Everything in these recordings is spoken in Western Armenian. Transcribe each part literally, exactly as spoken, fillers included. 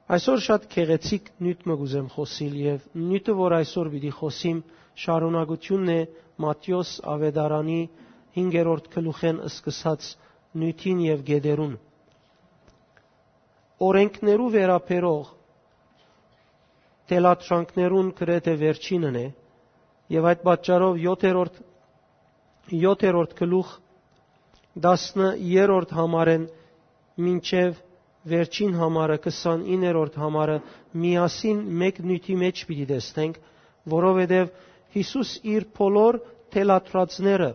Այսօր շատ գեղեցիկ նիւթ մը կ'ուզեմ խօսիլ, եւ նիւթը, որ այսօր պիտի խօսիմ, շարունակութիւնն է Մատթէոս աւետարանի հինգերորդ գլուխէն սկսած նիւթին եւ գետերուն։ Օրենքներու վերաբերող թելադրանքներուն գրեթէ վերջինն է, եւ այդ պատճառով յոթերորդ, յոթերորդ գլուխ, տասներորդ համարէն մինչեւ վերջին համարը, քսանիններորդ համարը, միասին մէկ նիւթի մէջ պիտի տեսնենք, որովհետեւ Յիսուս իր բոլոր թելադրածները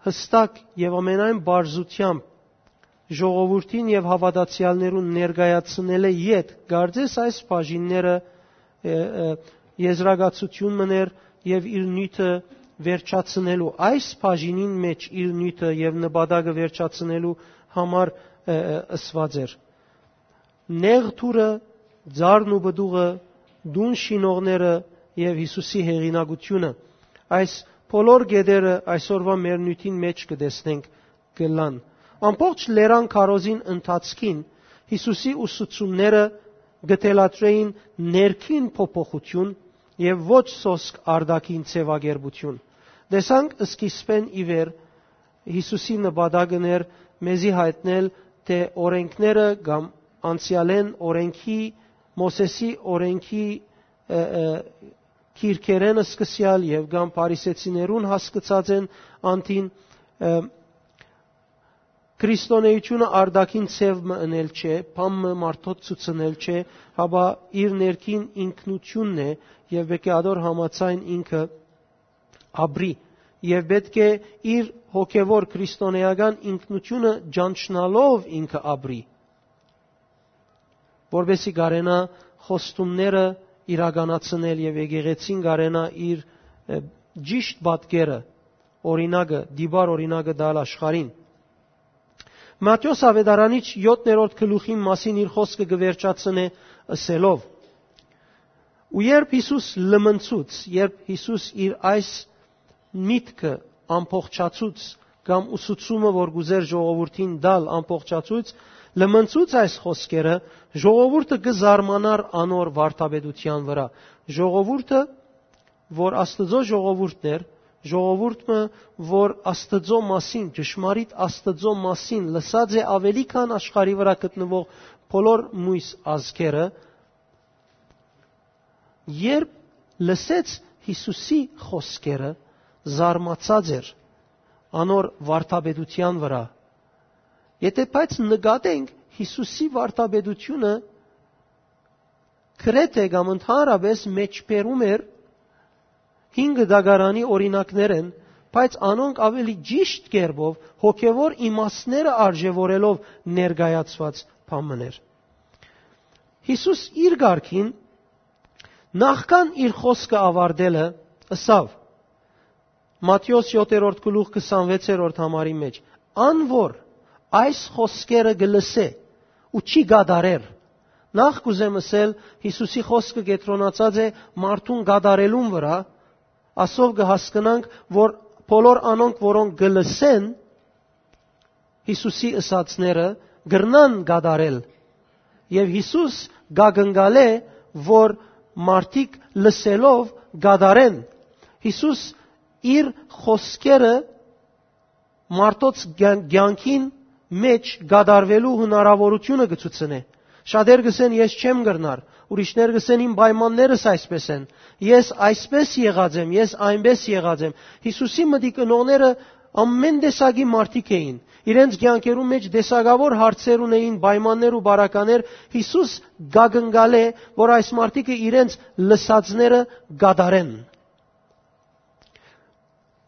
յստակ եւ ամենայն պարզութեամբ ժողովուրդին եւ հաւատացեալներուն ներկայացնելէ յետ, կարծես այս բաժինները, ը, ը, եզրակացութիւն մըն էր եւ իր նիւթը վերջացնելու, այս բաժինին մէջ իր նիւթը եւ նպատակը վերջացնելու համար, ը, ը, ըսուած էր։ Նեղ դուռը, ծառն ու պտուղը, տուն շինողները եւ Յիսուսի հեղինակությունը։ Այս բոլոր գետերը այսօրուայ մեր նիւթին մէջ կը տեսնենք կ'ըլլան։ Ամբողջ լերան քարոզին ընթացքին Յիսուսի ուսուցումները կը թելադրէին ներքին փոփոխութիւն եւ ոչ սոսկ արտաքին ձեւակերպութիւն։ Տեսանք սկիզբէն ի վեր Յիսուսի նպատակն էր մեզի յայտնել, թէ օրենքները կամ անցեալէն օրենքի, Մովսէսի օրենքի, ը, ը, գիրքերէն սկսեալ եւ կամ փարիսեցիներուն հասկցած են անդին, ը, քրիստոնէությունը արտաքին ձեւ մը ընել չէ, բան մը մարդոց ցուցնել չէ, հապա իր ներքին ինքնութիւնն է եւ պէտք է ադոր համաձայն ինքը ապրի եւ պէտք է իր հոգեվոր քրիստոնէական ինքնութիւնը ճանչնալով ինքը ապրի, որպեսզի կարենայ խոստումները իրականացնել եւ եկեղեցին կարենայ իր, ը, ճիշտ պատկերը, օրինակը, տիպար օրինակը տալ աշխարհին։ Մատթէոս աւետարանիչ յոթերորդ գլուխին մասին իր խօսքը կը վերջացնէ ըսելով. "Ու երբ Յիսուս լմնցուց, երբ Յիսուս իր այս միտքը ամբողջացուց, կամ ուսուցումը, որ կ'ուզէր ժողովուրդին տալ, ամբողջացուց, լմնցուց այս խօսքերը, ժողովուրդը կը զարմանար անոր վարդապետութեան վրայ"։ Ժողովուրդը, որ Աստուծոյ ժողովուրդն էր, ժողովուրդ մը, որ Աստուծոյ մասին, ճշմարիտ Աստուծոյ մասին լսած է աւելի քան աշխարհի վրայ գտնուող բոլոր միւս ազգերը, երբ լսեց Յիսուսի խօսքերը, զարմացած էր անոր վարդապետութեան վրայ։ Եթէ բայց նկատենք Յիսուսի վարդապետութիւնը, գրեթէ կամ ընդհանրապէս մեջբերում էր հին կտակարանի օրինակներէն, բայց անոնք աւելի ճիշտ կերպով հոգեվոր իմաստները արժեւորելով ներկայացուած բան մըն էր։ Յիսուս իր կարգին, նախքան իր խօսքը աւարտելը, ըսաւ, Մատթէոս յոթերորդ գլուխ քսանվեցերորդ համարի մէջ. "Ան որ այս խօսքերը կը լսէ ու չի կատարեր"։ Նախ կ'ուզեմ ըսել, Յիսուսի խօսքը կեդրոնացած է մարդուն կատարելուն վրայ, ասով կը հասկնանք, որ բոլոր անոնք, որոնք կը լսեն Յիսուսի ըսածները, կրնան կատարել։ Եւ Յիսուս կակնկալէ, որ մարդիկ լսելով կատարեն։ Յիսուս իր խօսքերը մարդոց կյան-, կյանքին մէջ կատարվելու հնարաւորութիւնը կը ցուցնէ։ Շատեր կ'ըսեն, "Ես չեմ կրնար", ուրիշներ կ'ըսեն, "Իմ պայմաններս այսպես են, ես այսպես եղած եմ, ես այնպես եղած եմ"։ Յիսուսի մտիկ ընողները ամեն տեսակի մարդիկ էին։ Իրենց կյանքերու մէջ տեսակաւոր հարցեր ունէին, պայմաններ ու բարականեր։ Յիսուս կակնկալէ, որ այս մարդիկը իրենց լսածները կատարեն։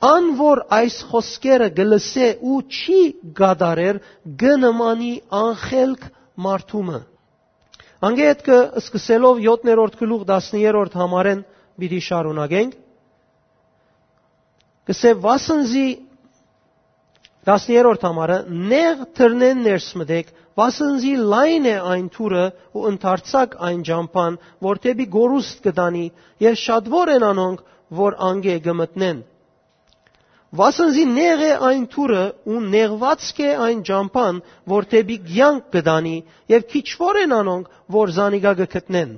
"Ան որ այս խօսքերը կը լսէ ու չի կատարեր, կը նմանի անխելք մարդու մը"։ Անկէ ետքը սկսելով յոթերորդ գլուխ տասներորդ համարէն պիտի շարունակենք։ Կսէ, վասն զի, տասներորդ համարը, "Նեղ դռնէն ներս մտեք, վասն զի լայն է այն դուռը ու ընդարձակ այն ճամբան, որ դէպի կորուստ կը տանի, եւ շատվոր են անոնք, որ անկէ կը մտնեն"։ Վասն զի նեղ է այն թուրը ու նեղուածք է այն ճամբան, որ դէպի կեանք կը տանի, եւ քիչուոր են անոնք, որ զանիկա կը գտնեն»։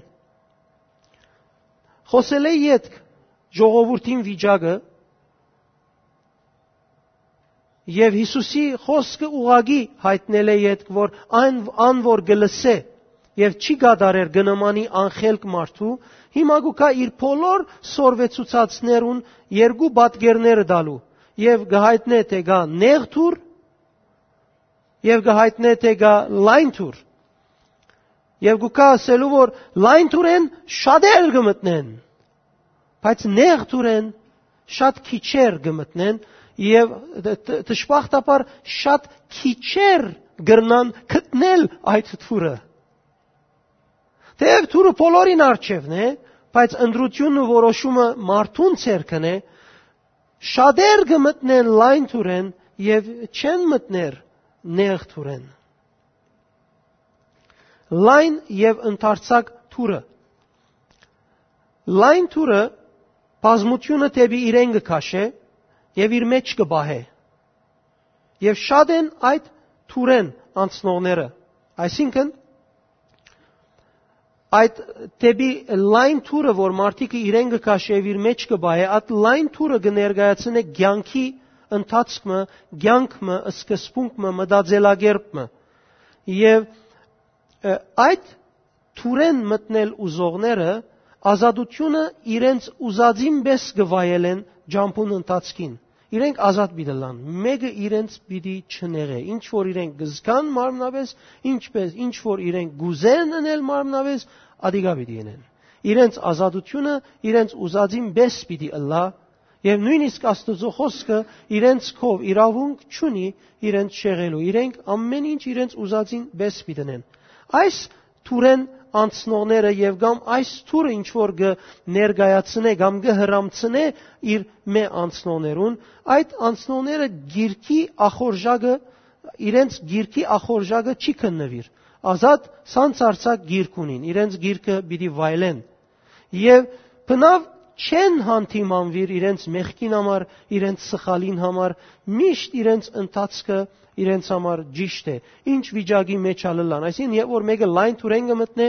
Խօսելէ ետք ժողովուրդին վիճակը եւ Յիսուսի խօսքը ուղղակի յայտնելէ ետք, որ այն, ան որ կը լսէ եւ չի կատարեր, կը նմանի անխելք մարդու, հիմա կու գայ իր բոլոր սորվեցուցածներուն երկու պատկերները տալու եւ կը յայտնէ թէ կայ նեղ թուր եւ կը յայտնէ թէ կայ լայն թուր։ Եւ կու գայ ըսելու, որ լայն թուրէն շատեր կը մտնեն, բայց նեղ թուրէն շատ քիչեր կը մտնեն, եւ դ-, դ-, դժբախտաբար շատ քիչեր կրնան գտնել այդ թուրը։ Թեեւ թուրը բոլորին առջեւն է, բայց ընտրությունն ու որոշումը մարդուն ձեռքն է, շատեր կը մտնեն լայն թուրէն եւ չեն մտներ նեղ թուրէն։ Լայն եւ ընդարձակ թուրը։ Լայն թուրը բազմությունը դէպի իրեն կը քաշէ եւ իր մէջ կը պահէ։ Եւ շատ են այդ թուրէն անցնողները, այսինքն, այդ դէպի լայն թուրը, որ մարդիկը իրեն կը քաշէ եւ իր մէջ կը պահէ, այդ լայն թուրը կը ներկայացնէ կեանքի ընթացք մը, կեանք մը, սկզբունք մը, մտածելակերպ մը։ Եւ, ը, այդ թուրէն մտնել ուզողները ազատությունը իրենց ուզածին պէս կը վայելեն ճամբուն ընթացքին։ Իրենք ազատ պիտի ըլլան, մէկը իրենց պիտի չնեղէ։ Ինչ որ իրենք կը զգան մարմնապէս, ինչպէս, ինչ որ իրենք կ'ուզեն ընել մարմնապէս, ատիկա պիտի ընեն։ Իրենց ազատությունը իրենց ուզածին պէս պիտի ըլլայ, եւ նոյնիսկ Աստուծոյ խօսքը իրենց քով իրաւունք չունի իրենց շեղելու։ Իրենք ամէն ինչ իրենց ուզածին պէս պիտի ընեն։ Այս թուրէն անցնողները եւ կամ այս թուրը ինչ որ կը ներկայացնէ կամ կը հրամցնէ իր մէ անցնողներուն, այդ անցնողները գիրքի ախորժակը, իրենց գիրքի ախորժակը չի քննուիր։ Ազատ սանցարձակ գիրք ունին, իրենց գիրքը պիտի վայելեն։ Եւ բնաւ չեն հանդիմանուիր իրենց մեղքին համար, իրենց սխալին համար, միշտ իրենց ընթացքը իրենց համար ճիշտ է, ինչ վիճակի մէջ ալ ըլլան։ Այսինքն, երբ որ մէկը լայն թուրէն կը մտնէ,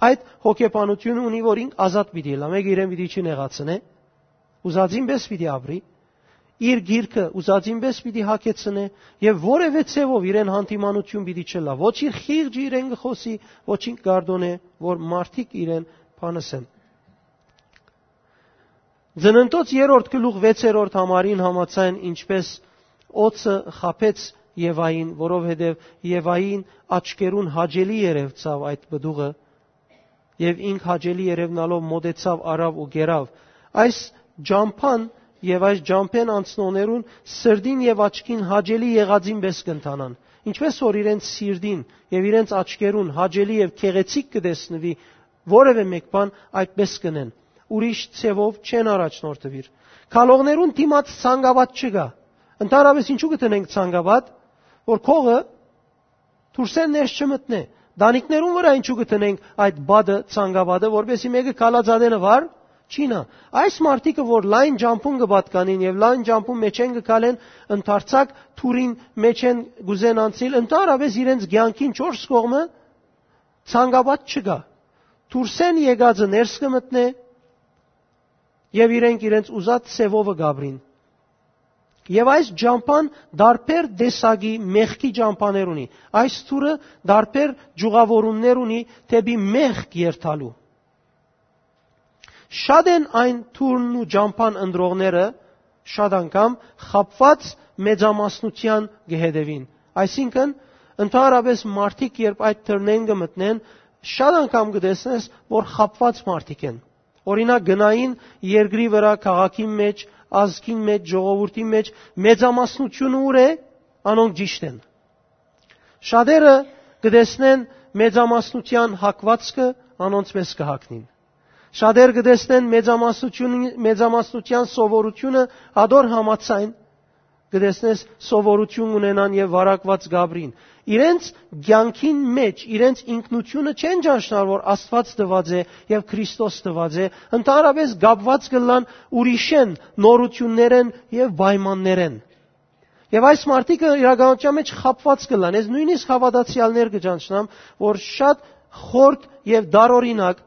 այդ հոգեբանությունը ունի, որ ինք ազատ պիտի ըլլայ, մէկը իրեն պիտի չի նեղացնէ, ուզածին պէս պիտի ապրի, իր գիրքը ուզածին պէս պիտի հագեցնէ եւ որեւէ ձեւով իրեն հանդիմանություն պիտի չըլլայ։ Ոչ իր խիղճը իրեն կը խօսի, ոչ ինք կարդոնէ, որ մարդիկ իրեն բանըսեն։ Ծննդոց երրորդ գլուխ վեցերորդ համարին համաձայն, ինչպէս օծը խաբեց Եվային, որովհետեւ Եվային աչքերուն հաճելի երեւցաւ այդ պտուղը, եւ ինք հաճելի երեւնալով մօտեցաւ, առաւ ու կերաւ։ Այս ճամբան եւ այս ճամբէն անցնողներուն սրտին եւ աչքին հաճելի եղածին պէս կ'ընթանան, ինչպէս որ իրենց սիրտին եւ իրենց աչքերուն հաճելի եւ գեղեցիկ կը տեսնուի որեւէ մէկ բան, այդպէս կ'ընեն, ուրիշ ձեւով չեն առաջնորդուիր։ Քալողներուն դիմաց ցանկապատ չկայ։ Ընդհանրապէս ինչու կը դնենք ցանկապատ, որ քողը դուրսէն ներս չմտնէ։ Տանիքներուն վրայ ինչու կը դնենք այդ պատը, ցանկապատը, որպեսզի մէկը քալած ատենը վար չի նայ։ Այս մարդիկը, որ լայն ճամբուն կը պատկանին եւ լայն ճամբուն մէջէն կը քալեն, ընդարձակ թուրին մէջէն կ'ուզեն անցնիլ, ընդհանրապէս իրենց կեանքին չորս կողմը ցանկապատ չկայ։ Դուրսէն եկածը ներս կը մտնէ եւ իրենք իրենց ուզած ձեւովը կ'ապրին։ Եւ այս ճամբան տարբեր տեսակի մեղքի ճամբաներ ունի։ Այս թուրը տարբեր ճյուղավորումներ ունի դէպի մեղք երթալու։ Շատ են այն թուրն ու ճամբան ընտրողները, շատ անգամ խաբուած մեծամասնութեան կը հետեւին։ Այսինքն, ընդհանրապէս մարդիկ, երբ այդ թրնեն կը մտնեն, շատ անգամ կը տեսնես, որ խաբուած մարդիկ են։ Օրինակ, գնային երկրի վրայ, քաղաքին մէջ, ազգին մէջ, ժողովուրդին մէջ, մեծամասնությունը ուր է, անոնք ճիշտ են։ Շատերը կը տեսնեն մեծամասնութեան հակվածքը, անոնց պէս կը հակնին։ Շատեր կը տեսնեն մեծամասնություն, մեծամասնութեան սովորությունը, ադոր համաձայն, կը տեսնես, սովորություն ունենան եւ վարակուած կ'ապրին։ իրենց կեանքին մէջ, իրենց ինքնութիւնը չեն ճանչնար, որ Աստուած տուած է եւ Քրիստոս տուած է, ընդհանրապէս կապուած կ'ըլլան ուրիշէն, նորութիւններէն եւ պայմաններէն։ Եւ այս մարդիկը իրականության մէջ խաբուած կ'ըլլան։ Ես նոյնիսկ հաւատացեալներ կը ճանչնամ, որ շատ խորթ եւ տարօրինակ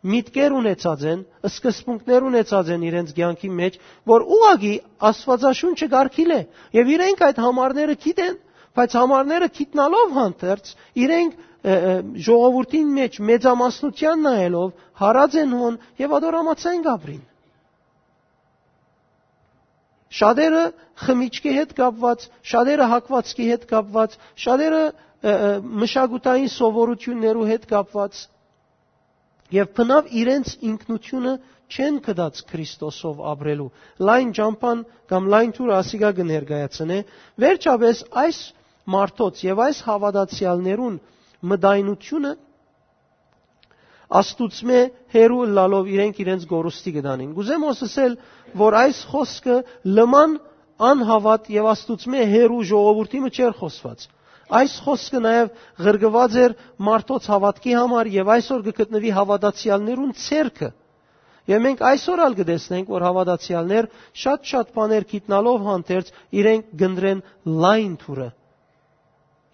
միտքեր ունեցած են, սկզբունքներ ունեցած են իրենց կեանքի մէջ, որ ուղղակի Աստուածաշունչը կարգիլ է, եւ իրենք այդ համարները գիտեն, բայց համարները գիտնալով հանդերձ, իրենք, ը, ը, ժողովուրդին մէջ մեծամասնութեան նայելով, հարած են հոն եւ ատոր համաձայն կ'ապրին։ Շատերը խմիչքի հետ կապուած, շատերը հագուածքի հետ կապուած, շատերը, ը, ը, մշակութային սովորութիւններու հետ կապուած, եւ բնաւ իրենց ինքնութիւնը չեն գտած Քրիստոսով ապրելու։ Լայն ճամբան կամ լայն թուրը ասիկա կը ներկայացնէ։ Վերջապէս այս մարդոց եւ այս հաւատացեալներուն մտայնութիւնը Աստուծմէ հեռու ըլլալով իրենք իրենց կորուստի կը տանին։ Կ'ուզեմ հոս ըսել, որ այս խօսքը լման անհաւատ եւ Աստուծմէ հեռու ժողովուրդի մը չէր խօսուած։ Այս խօսքը նաեւ ղրկուած էր մարդոց հաւատքի համար եւ այսօր կը գտնուի հաւատացեալներուն ձեռքը։ Եւ մենք այսօր ալ կը տեսնենք, որ հաւատացեալներ շատ-շատ բաներ գիտնալով հանդերձ իրենք կ'ընտրեն լայն թուրը։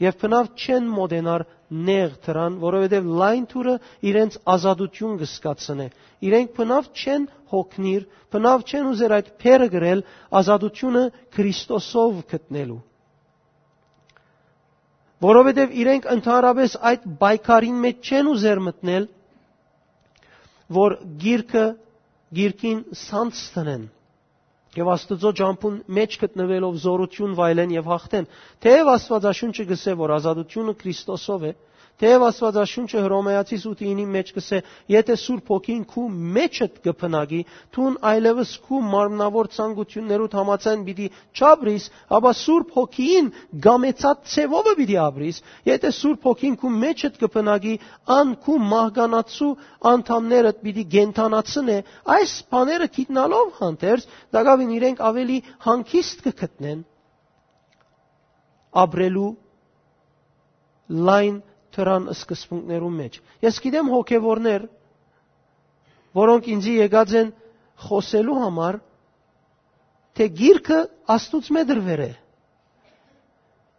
Եւ բնաւ չեն մոտենար նեղ դրան, որովհետեւ լայն թուրը իրենց ազատութիւն կը զգացնէ։ Իրենք բնաւ չեն հոգնիր, բնաւ չեն ուզեր այդ փերը գրել ազատութիւնը Քրիստոսով գտնելու։ Որովհետեւ իրենք ընդհանրապէս այդ պայքարին մէջ չեն ուզեր մտնել, որ գիրքը, գիրքին սանձ դնեն եւ Աստուծոյ ճամբուն մէջ գտնուելով զօրութիւն վայելեն եւ հաղթեն։ Թէեւ Աստուածաշունչը կ'ըսէ, որ ազատութիւնը Քրիստոսով է, թէեւ Աստուածաշունչը Հռոմեացիս ութի ինի մէջ կ'ըսէ, «Եթէ Սուրբ Հոգին քու մէջդ կը բնակի, դուն այլեւս քու մարմնաւոր ցանկութիւններուդ համաձայն պիտի չապրիս, ապա Սուրբ Հոգին կամեցած ձեւովը պիտի ապրիս։ Եթէ Սուրբ Հոգին քու մէջդ կը բնակի, ան քու մահկանացու անդամներդ պիտի կենդանացնէ»։ Այս բաները գիտնալով հանդերձ, տակաւին իրենք աւելի հանգիստ կը գտնեն ապրելու լայն դրան սկզբունքներու մէջ։ Ես գիտեմ հոգեվորներ, որոնք ինձի եկած են խօսելու համար, թէ գիրքը Աստուծմէ դրուեր է։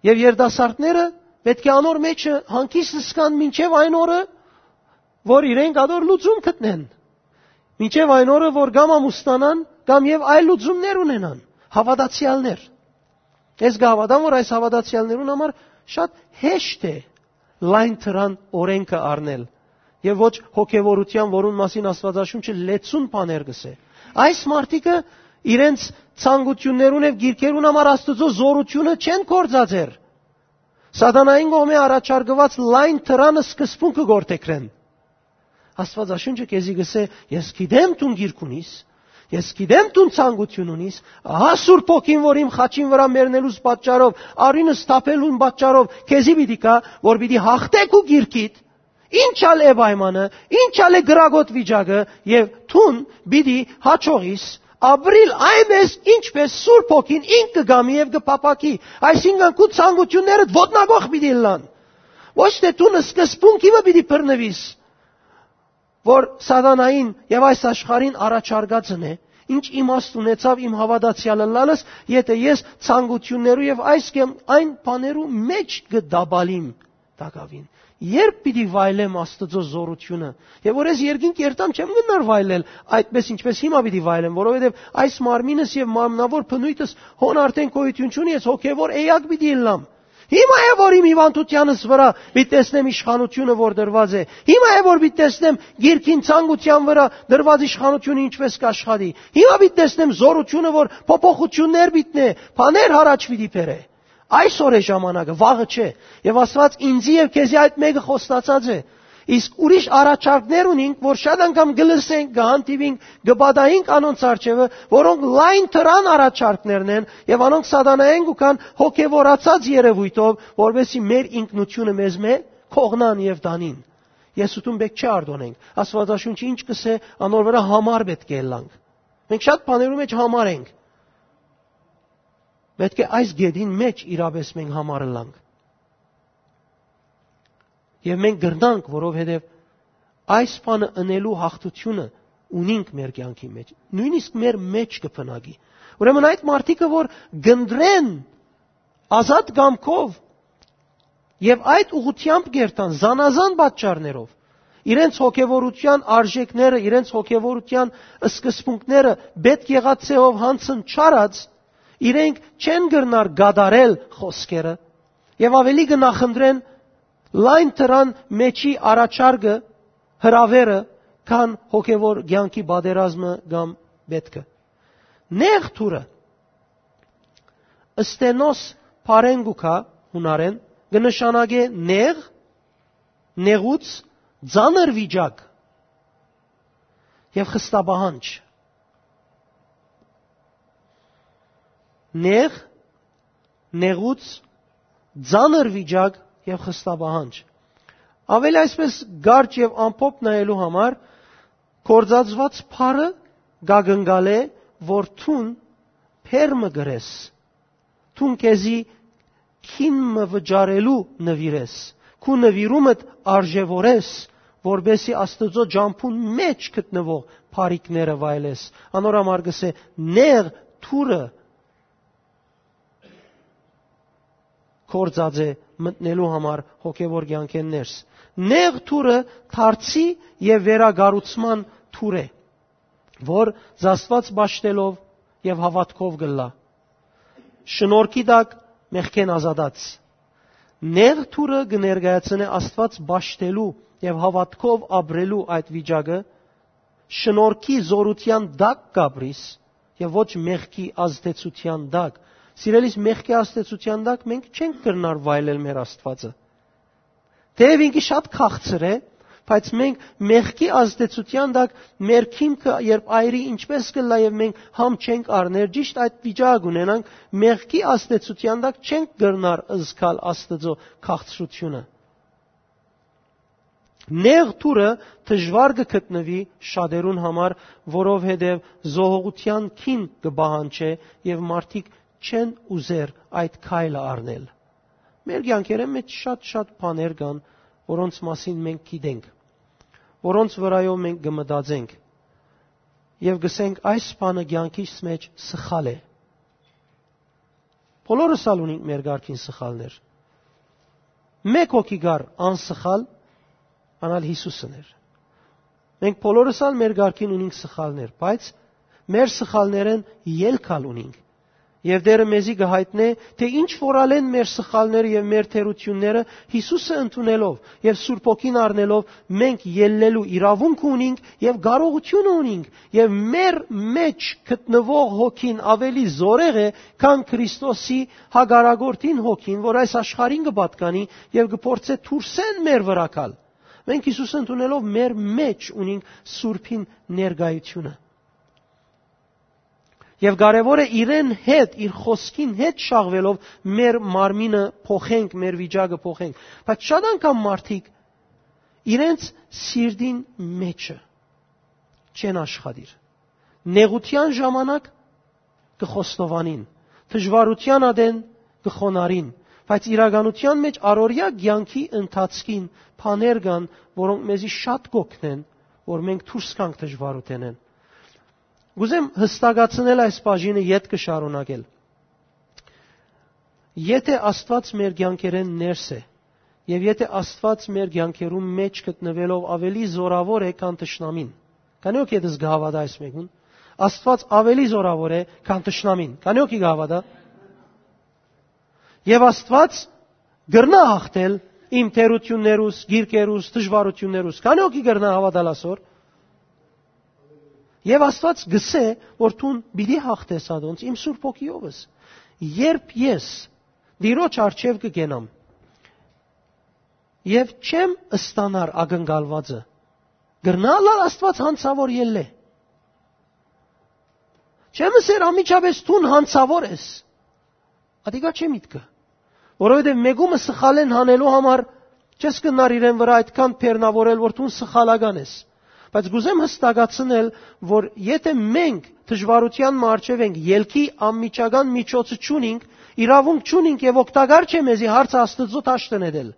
Եւ երիտասարդները պէտք է անոր մէջը հանգիստ զգան մինչեւ այն օրը, որ իրենք ատոր լուծում գտնեն։ Մինչեւ այն օրը, որ կամ ամուսնանան, կամ եւ այլ լուծումներ ունենան։ Հաւատացեալներ։ Ես կհաւատամ, որ այս հաւատացեալներուն համար շատ հեշտ է լայն դրան օրէնքը առնել եւ ոչ հոգեվորութեան, որուն մասին Աստուածաշունչը լեցուն բաներ կ'ըսէ։ Այս մարդիկը իրենց ցանկութիւններուն եւ գիրքերուն համար Աստուծոյ զօրութիւնը չեն կործածեր։ Սատանային կողմէ առաջարկուած լայն դրան սկզբունքը գործեգրեն։ Աստուածաշունչը քեզի կ'ըսէ. «Ես գիտեմ դուն գիրք ունիս, ես գիտեմ դուն ցանկութիւն ունիս, ահա Սուրբ Հոգին, որ իմ խաչին վրայ մեռնելուս պատճառով, արիւնս թափելուն պատճառով քեզի պիտի գայ, որ պիտի հաղթէ քու գիրքիդ, ինչ ալ է պայմանը, ինչ ալ է կրակոտ վիճակը, եւ դուն պիտի յաջողիս ապրիլ այնպես, ինչպես Սուրբ Հոգին ինք կը կամի եւ կը փափաքի»։ Այսինքն, քու ցանկութիւններդ ոտնակոխ պիտի ըլլան։ Ոչ թէ դուն սկզբունքի մը պիտի բռնուիս, որ սատանային եւ այս աշխարհին առաջարկածն է, ինչ իմաստ ունեցավ իմ հաւատացեալ ըլլալս, եթէ ես ցանկութիւններու եւ այս կամ այն բաներու մէջ կը տապալիմ տակաւին։ Երբ պիտի վայելեմ Աստուծոյ զօրութիւնը, եւ որ ես երկինք երթամ, չեմ գնար վայելել այդպես, ինչպես հիմա պիտի վայելեմ, որովհետեւ այս մարմինս եւ մարմնաւոր բնոյթս հոն արդեն գոյութիւն չունի, ես հոգեւոր էակ պիտի ըլլամ։ Հիմա է, որ իմ հիվանդութեանս վրայ պիտի տեսնեմ իշխանութիւնը, որ դրուած է։ Հիմա է, որ պիտի տեսնեմ գիրքին, ցանկութեան վրայ դրուած իշխանութիւնը ինչպես կ'աշխատի։ Հիմա պիտի տեսնեմ զօրութիւնը, որ փոփոխութիւններ պիտի նե, բաներ յառաջ պիտի բերէ։ Այսօր է ժամանակը, վաղը չէ։ Եւ Աստուած ինձի եւ քեզի այդ մէկը խոստացած է։ Իսկ ուրիշ առաջարկներ ունինք, որ շատ անգամ կը լսենք, կը հանդիպինք, կը պատահինք անոնց առջեւը, որոնք լայն դրան առաջարկներն են, եւ անոնք սատանայեն կու գան հոգեվորացած երեւոյթով, որպեսզի մեր ինքնութիւնը մեզմէ կողնան եւ տանին։ Ես ութուն պէտք չէ արտօնենք։ Աստուածաշունչը ինչ կ'ըսէ, անոր վրայ համար պէտք է ըլլանք։ Մենք շատ բաներու մէջ համար ենք։ Պէտք է այս գետին մէջ իրապէս մենք համար ըլլանք։ Եւ մենք կրնանք, որովհետեւ այս բանը ընելու հաղթութիւնը ունինք մեր կեանքի մէջ, նոյնիսկ մեր մէջ կը բնակի։ Ուրեմն այդ մարդիկը, որ կընտրեն ազատ կամքով եւ այդ ուղղութեամբ կերթան, զանազան պատճառներով, իրենց հոգեվորութեան արժեքները, իրենց հոգեվորութեան սկզբունքները պէտք եղած ձեւով յանցն չարած, իրենք չեն կրնար կատարել խօսքերը եւ աւելի կը նախընտրեն լայն դրան մէջի առաջարկը, հրաւերը, քան հոգեվոր կեանքի պատերազմը կամ պէտքը։ Նեղ դուռը, Ստենոս բառէն կու գայ, յունարէն, կը նշանակէ նեղ, նեղուց, ծանր վիճակ եւ խստապահանջ։ Նեղ, նեղուց, ծանր վիճակ եւ խստապահանջ։ Աւելի այսպես կարճ եւ ամփոփ նայելու համար, գործածուած բառը կակնկալէ, որ դուն բերմը կրես, դուն քեզի քին մը վճարելու նուիրես, քու նուիրումդ արժեւորես, որպեսզի Աստուծոյ ճամբուն մէջ գտնուող բարիքները վայելես։ Անոր համար կ'ըսէ. «Նեղ դուռը գործած է մտնելու համար հոգեվոր կեանքէն ներս։ Նեղ դուռը դարձի եւ վերակառուցման դուռ է, որ զաստուած պաշտելով եւ հաւատքով կ'ըլլայ, շնորհքի տակ մեղքէն ազատած։ Նեղ դուռը կը ներկայացնէ Աստուած պաշտելու եւ հաւատքով ապրելու այդ վիճակը, շնորհքի զօրութեան տակ կ'ապրիս եւ ոչ մեղքի ազդեցութեան տակ»։ Սիրելիս, մեղքի ազդեցութեան տակ մենք չենք կրնար վայելել մեր Աստուածը։ Թեեւ ինքը շատ քաղցր է, բայց մենք մեղքի ազդեցութեան տակ մեր քիմքը երբ այրի ինչպես կ'ըլլայ եւ մենք համ չենք առներ, ճիշտ այդ վիճակ ունենանք, մեղքի ազդեցութեան տակ չենք կրնար զգալ Աստուծոյ քաղցրութիւնը։ Նեղ դուռը դժուար կը գտնուի շատերուն համար, որովհետեւ զոհողութեան քին կը պահանջէ եւ մարդիկ չեն ուզեր այդ քայլը առնել։ Մեր կեանքերէն մէջ շատ-շատ բաներ կան, որոնց մասին մենք գիտենք, որոնց վրայով մենք կը մտածենք եւ կ'ըսենք. «Այս բանը կեանքիս մէջ սխալ է»։ Բոլորս ալ ունենք մեր կարգին սխալներ։ Մէկ հոգի կար անսխալ, ան ալ Յիսուսն էր։ Մենք բոլորս ալ մեր կարգին ունենք սխալներ, բայց մեր սխալներէն ելք ալ ունենք։ Եւ Տէրը մեզի կը յայտնէ, թէ ինչ որ ալ են մեր սխալները եւ մեր թերութիւնները, Յիսուսը ընդունելով եւ Սուրբ Հոգին առնելով, մենք ելլելու իրաւունքը ունենք եւ կարողութիւնը ունենք, եւ մեր մէջ գտնուող հոգին աւելի զօրեղ է, քան Քրիստոսի հակառակորդին հոգին, որ այս աշխարհին կը պատկանի եւ կը փորձէ դուրսէն մեր վրայ գալ։ Մենք Յիսուսը ընդունելով մեր մէջ ունենք Սուրբին ներկայությունը։ Եւ կարեւոր է իրեն հետ, իր խօսքին հետ շաղվելով մեր մարմինը փոխենք, մեր վիճակը փոխենք։ Բայց շատ անգամ մարդիկ իրենց սիրտին մէջը չեն աշխատիր։ Նեղութեան ժամանակ կը խոստովանին, դժուարութեան ատեն կը խոնարհին, բայց իրականութեան մէջ առօրեայ կեանքի ընթացքին բաներ կան, որոնք մեզի շատ կ'օգնեն, որ մենք դուրս գանք դժուարութենէն։ Կ'ուզեմ յստակացնել այս բաժինը, ետ կը շարունակել։ Եթէ Աստուած մեր կեանքերէն ներս է, եւ եթէ Աստուած մեր կեանքերուն մէջ գտնուելով աւելի զօրաւոր է, քան թշնամին, քանի՞ հոգի ետս կը հաւատայ այս մեկուն, Աստուած աւելի զօրաւոր է, քան թշնամին, քանի՞ հոգի կը հաւատայ։ Եւ Աստուած կրնայ հաղթել իմ թերութիւններուս, գիրկերուս, դժուարութիւններուս, քանի՞ հոգի կրնայ հաւատալ ասոր։ Եւ Աստուած կ'ըսէ, որ դուն պիտի հաղթես ատոնց իմ Սուրբ Հոգիովս։ Երբ ես Տիրոջ առջեւ կը կենամ եւ չեմ ստանար ակնկալուածը, կրնա՞ ըլլալ Աստուած յանցաւոր ելլէ։ Չեմ ըսեր անմիջապէս դուն յանցաւոր ես։ Ատիկա չէ միտքը, որովհետեւ մեկումը սխալեն հանելու համար չես կրնար իրեն վրայ այդքան բեռնաւորել, որ դուն սխալական ես։ Բայց կ'ուզեմ յստակացնել, որ եթէ մենք դժուարութեան մը առջեւ ենք, ելքի անմիջական միջոցը չունինք, իրաւունք չունինք եւ օգտակար չէ մեզի հարցը Աստուծոյ դաշտը նետել։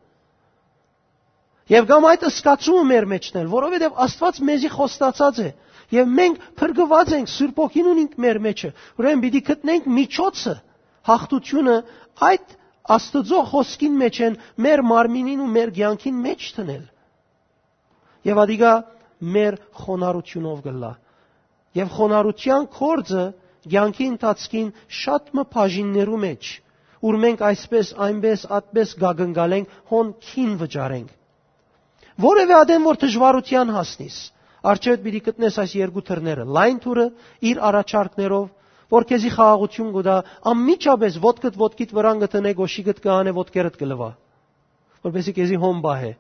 Եւ կամ այդ սկացումը մեր մեջն էլ, որովհետեւ Աստուած մեզի խոստացած է, եւ մենք փրկուած ենք Սուրբ Հոգին ունինք մեր մեջը, ուրեմն պիտի գտնենք միջոցը, հաղթությունը այդ Աստուծոյ խոսքին մեջ են մեր մարմինին ու մեր կեանքին մեջ դնել։ Եւ ադիկա մեր խոնարհությունով կ'ըլլայ։ Եւ խոնարհութեան գործը կեանքի ընթացքին շատ մը բաժիններու մեջ, ուր մենք այսպես, այնպես, ատպես կակնկալենք, հոն քին վճարենք։ Որևէ ատեն որ դժուարութեան հասնիս, արջերդ պիտի գտնես այս երկու դռները, լայն դուռը իր առաջարկներով, որ քեզի խաղաղություն կու տայ, անմիջապէս ոտքդ ոտքիդ վրան կը դնէ, գոշիկդ կը անէ, ոտքերդ կը լուայ, որպեսզի քեզի հոն պահէ։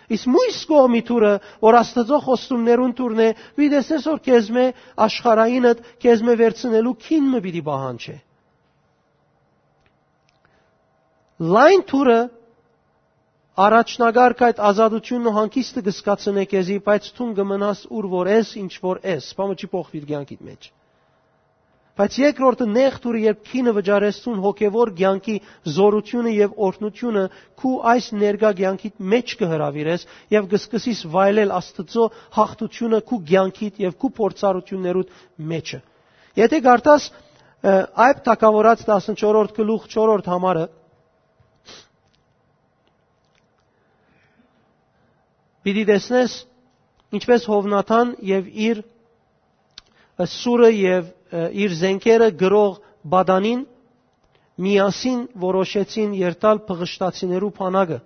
Իսկ մոյս կողմի դուռը, որ Աստուծոյ խոստումներուն դուռն է, պիտի տեսնես որ քեզմէ, աշխարհայինդ քեզմէ վերցնելու քին մը պիտի պահանջէ։ Լայն դուռը առաջնակարգ այդ ազատությունն ու հանգիստը կը զգացնէ քեզի, բայց դուն կը մնաս ուր որ ես, ինչ որ ես, բանը չի փոխուիր կեանքիդ մեջ։ Բայց երկրորդը, նեղ դուռը, երբ քինը վճարես դուն հոգեվոր կեանքի զորությունը եւ օրհնությունը քու այս ներկայ կեանքիդ մեջ կը հրաւիրես եւ կը սկսես վայելել Աստուծոյ հաղթությունը քու կեանքիդ եւ քու փորձառություններուդ մեջը։ Եթե կարդաս, ը, Այբ թագաւորաց տասնչորրորդ գլուխ չորրորդ համարը, պիտի տեսնես, ինչպես Յովնաթան եւ իր, ը, սուրը եւ, ը, իր զենքերը գրող Բադանին միասին որոշեցին երթալ փղշտացիներու բանակը։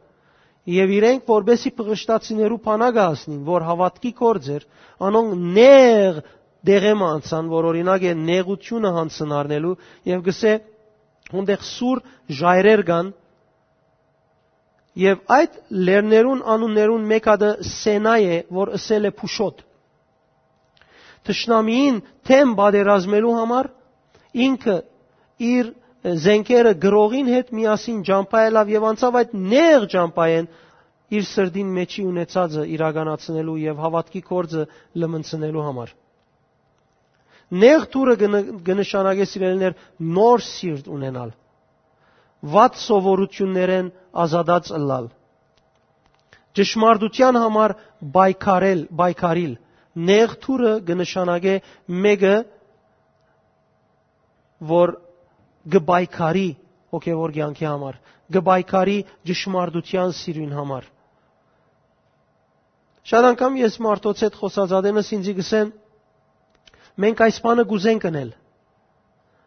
Եւ իրենք, որպեսի փղշտացիներու բանակը հասնին, որ հաւատքի գործ էր, անոնք նեղ դեղէ մը անցան, որ օրինակ է նեղությունը յանցն առնելու, եւ գսէ, հոնդեղ սուր ժայռեր կան, եւ այդ լեռներուն անուններուն մէկ ատը Սենայ է, որ ըսել է Փուշոտ։ Թշնամիին դէմ պատերազմելու համար ինքը իր զենքերը գրողին հետ միասին ճամբայ ելաւ եւ անցաւ այդ նեղ ճամբայէն իր սրտին մեջի ունեցածը իրականացնելու եւ հաւատքի գործը լմնցնելու համար։ Նեղ դուռը կը ն-, կը նշանակէ, սիրելիներ, նոր սիրտ ունենալ, վատ սովորութիւններէն ազատած ըլլալ, ճշմարտութեան համար պայքարել, պայքարիլ։ Նեղ դուռը կը նշանակէ մէկը, որ կը պայքարի հոգեվոր կեանքի համար, կը պայքարի ճշմարտութեան սիրոյն համար։ Շատ անգամ ես մարդոց հետ խօսած ատենս ինձի կ'ըսեն, մենք այս բանը կ'ուզենք ընել,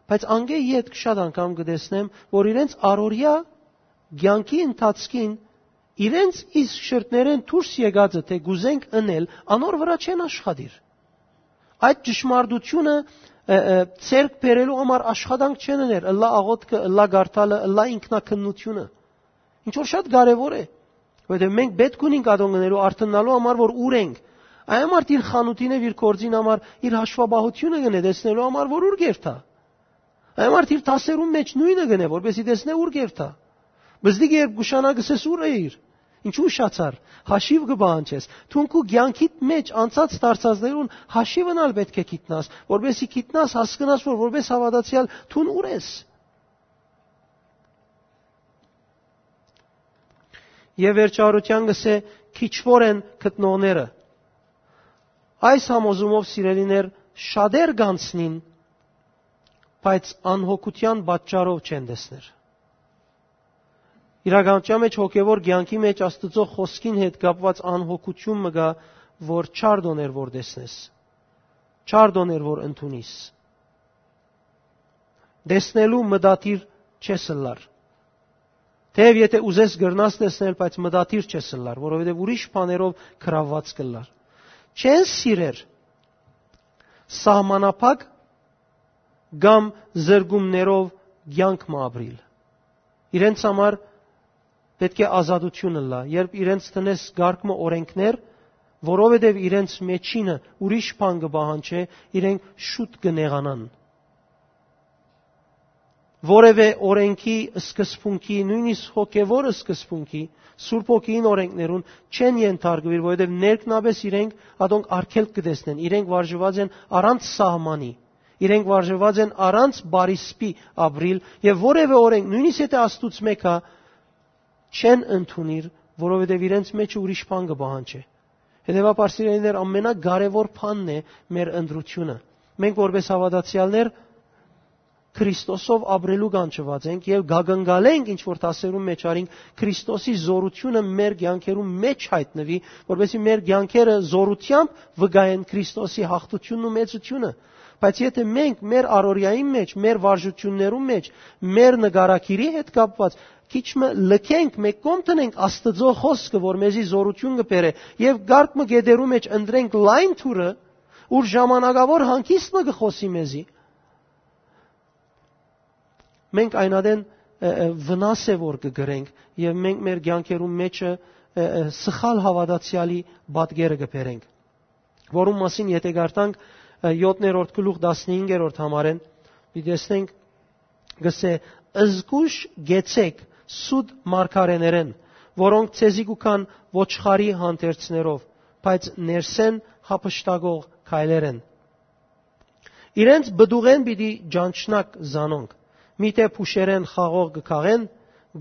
բայց անկէ ետք շատ անգամ կը տեսնեմ, որ իրենց առօրեայ կեանքի ընթացքին իրենց իսկ շրթներէն դուրս եկածը, թէ կ'ուզենք ընել, անոր վրայ չեն աշխատիր։ Այդ ճշմարտությունը, ը, ը, ձեռք բերելու համար աշխատանք չեն ըներ, ըլլայ աղօթքը, ըլլայ կարդալը, ըլլայ ինքնակննությունը։ Ինչ որ շատ կարեւոր է, որովհետեւ մենք պէտք ունենք ատոնք ընելու, արթննալու համար, որ ուր ենք։ Այն համար իր խանութին եւ իր գործին համար, իր հաշվապահությունը կ'ընէ, տեսնելու համար, որ ուր կ'երթայ։ Այն համար իր դասերուն մեջ նոյնը կ'ընէ, որպեսզի տեսնէ ուր կ'երթայ։ Բզդիկը երբ կ'ուշանայ, կ'ըսես, ո՞ւր էիր, ինչու ուշացար, հաշիւ կը պահանջես։ Դուն քու կեանքիդ մեջ անցած դարձածներուն հաշիվն ալ պէտք է գիտնաս, որպեսզի գիտնաս, հասկնաս, որ որպես հաւատացեալ դուն ուր ես։ Եւ վերջավորութեան կ'ըսէ, քիչվոր են գտնողները։ Այս համոզումով, սիրելիներ, շատեր կ'անցնին, բայց անհոգութեան պատճառով չեն տեսներ։ Իրականության մեջ, հոգեվոր կեանքի մեջ Աստուծոյ խօսքին հետ կապուած անհոգութիւն մը կայ, որ չար տօներ որ տեսնես, չար տօներ որ ընդունիս։ Տեսնելու մտադիր չես ըլլար։ Թեեւ եթե ուզես, կրնաս տեսնել, բայց մտադիր չես ըլլար, որովհետեւ ուրիշ բաներով գրաւուած կ'ըլլար։ Չեն սիրեր սահմանափակ կամ զրկումներով կեանք մը ապրիլ։ Իրենց համար պէտք է ազատություն ըլլայ, երբ իրենց տնես կարգ մը օրենքներ, որովհետեւ իրենց մեջինը ուրիշ բան կը պահանջէ, իրենք շուտ կը նեղանան։ Որևէ օրենքի սկզբունքի, նոյնիսկ հոգեվոր սկզբունքի, Սուրբ Հոգիին օրենքներուն չեն ենթարկուիր, որովհետեւ ներքնապէս իրենք ատոնք արգելք կը տեսնեն, իրենք վարժուած են առանց սահմանի, իրենք վարժուած են առանց բարիսպի ապրիլ, եւ որևէ օրենք, նոյնիսկ եթե Աստուծմէ գայ, չեն ընդունիր, որովհետեւ իրենց մէջը ուրիշ բան կը պահանջէ։ Հետեւաբար, սիրելիներ, ամենակարեւոր բանն է մեր ընտրութիւնը։ Մենք որպէս հաւատացեալներ Քրիստոսով ապրելու կանչուած ենք եւ կակնկալենք, ինչ որ դասերուն մէջ արինք, Քրիստոսի զօրութիւնը մեր կեանքերուն մէջ յայտնուի, որպեսզի մեր կեանքերը զօրութեամբ վկայեն Քրիստոսի յաղթութիւնն ու մեծութիւնը։ Բայց եթէ մենք մեր առօրեային մէջ, մեր վարժութիւններուն մէջ, մեր նկարագիրի հետ կապուած քիչ մը լքենք, մէկ կողմ դնենք Աստուծոյ խօսքը, որ մեզի զօրութիւն կը բերէ, եւ կարգ մը գետերու մէջ ընտրենք լայն թուրը, ուր ժամանակաւոր հանգիստ մը կը խօսի մեզի, մենք այն ատեն, ը, ը, վնաս է որ կը կրենք եւ մենք մեր կեանքերուն մէջը, ը, ը, սխալ հաւատացեալի պատկերը կը բերենք, որուն մասին եթէ կարդանք, ը, յոթերորդ գլուխ տասնհինգերորդ համարէն, պիտի տեսնենք, կսէ. «Զգոյշ կեցեք սուտ մարգարէներէն, որոնք ձեզի կու գան ոչխարի հանդերձներով, բայց ներսէն յափշտակող քայլեր են։ Իրենց պտուղէն պիտի ճանչնաք զանոնք, միթէ փուշերէն խաղող կը քաղեն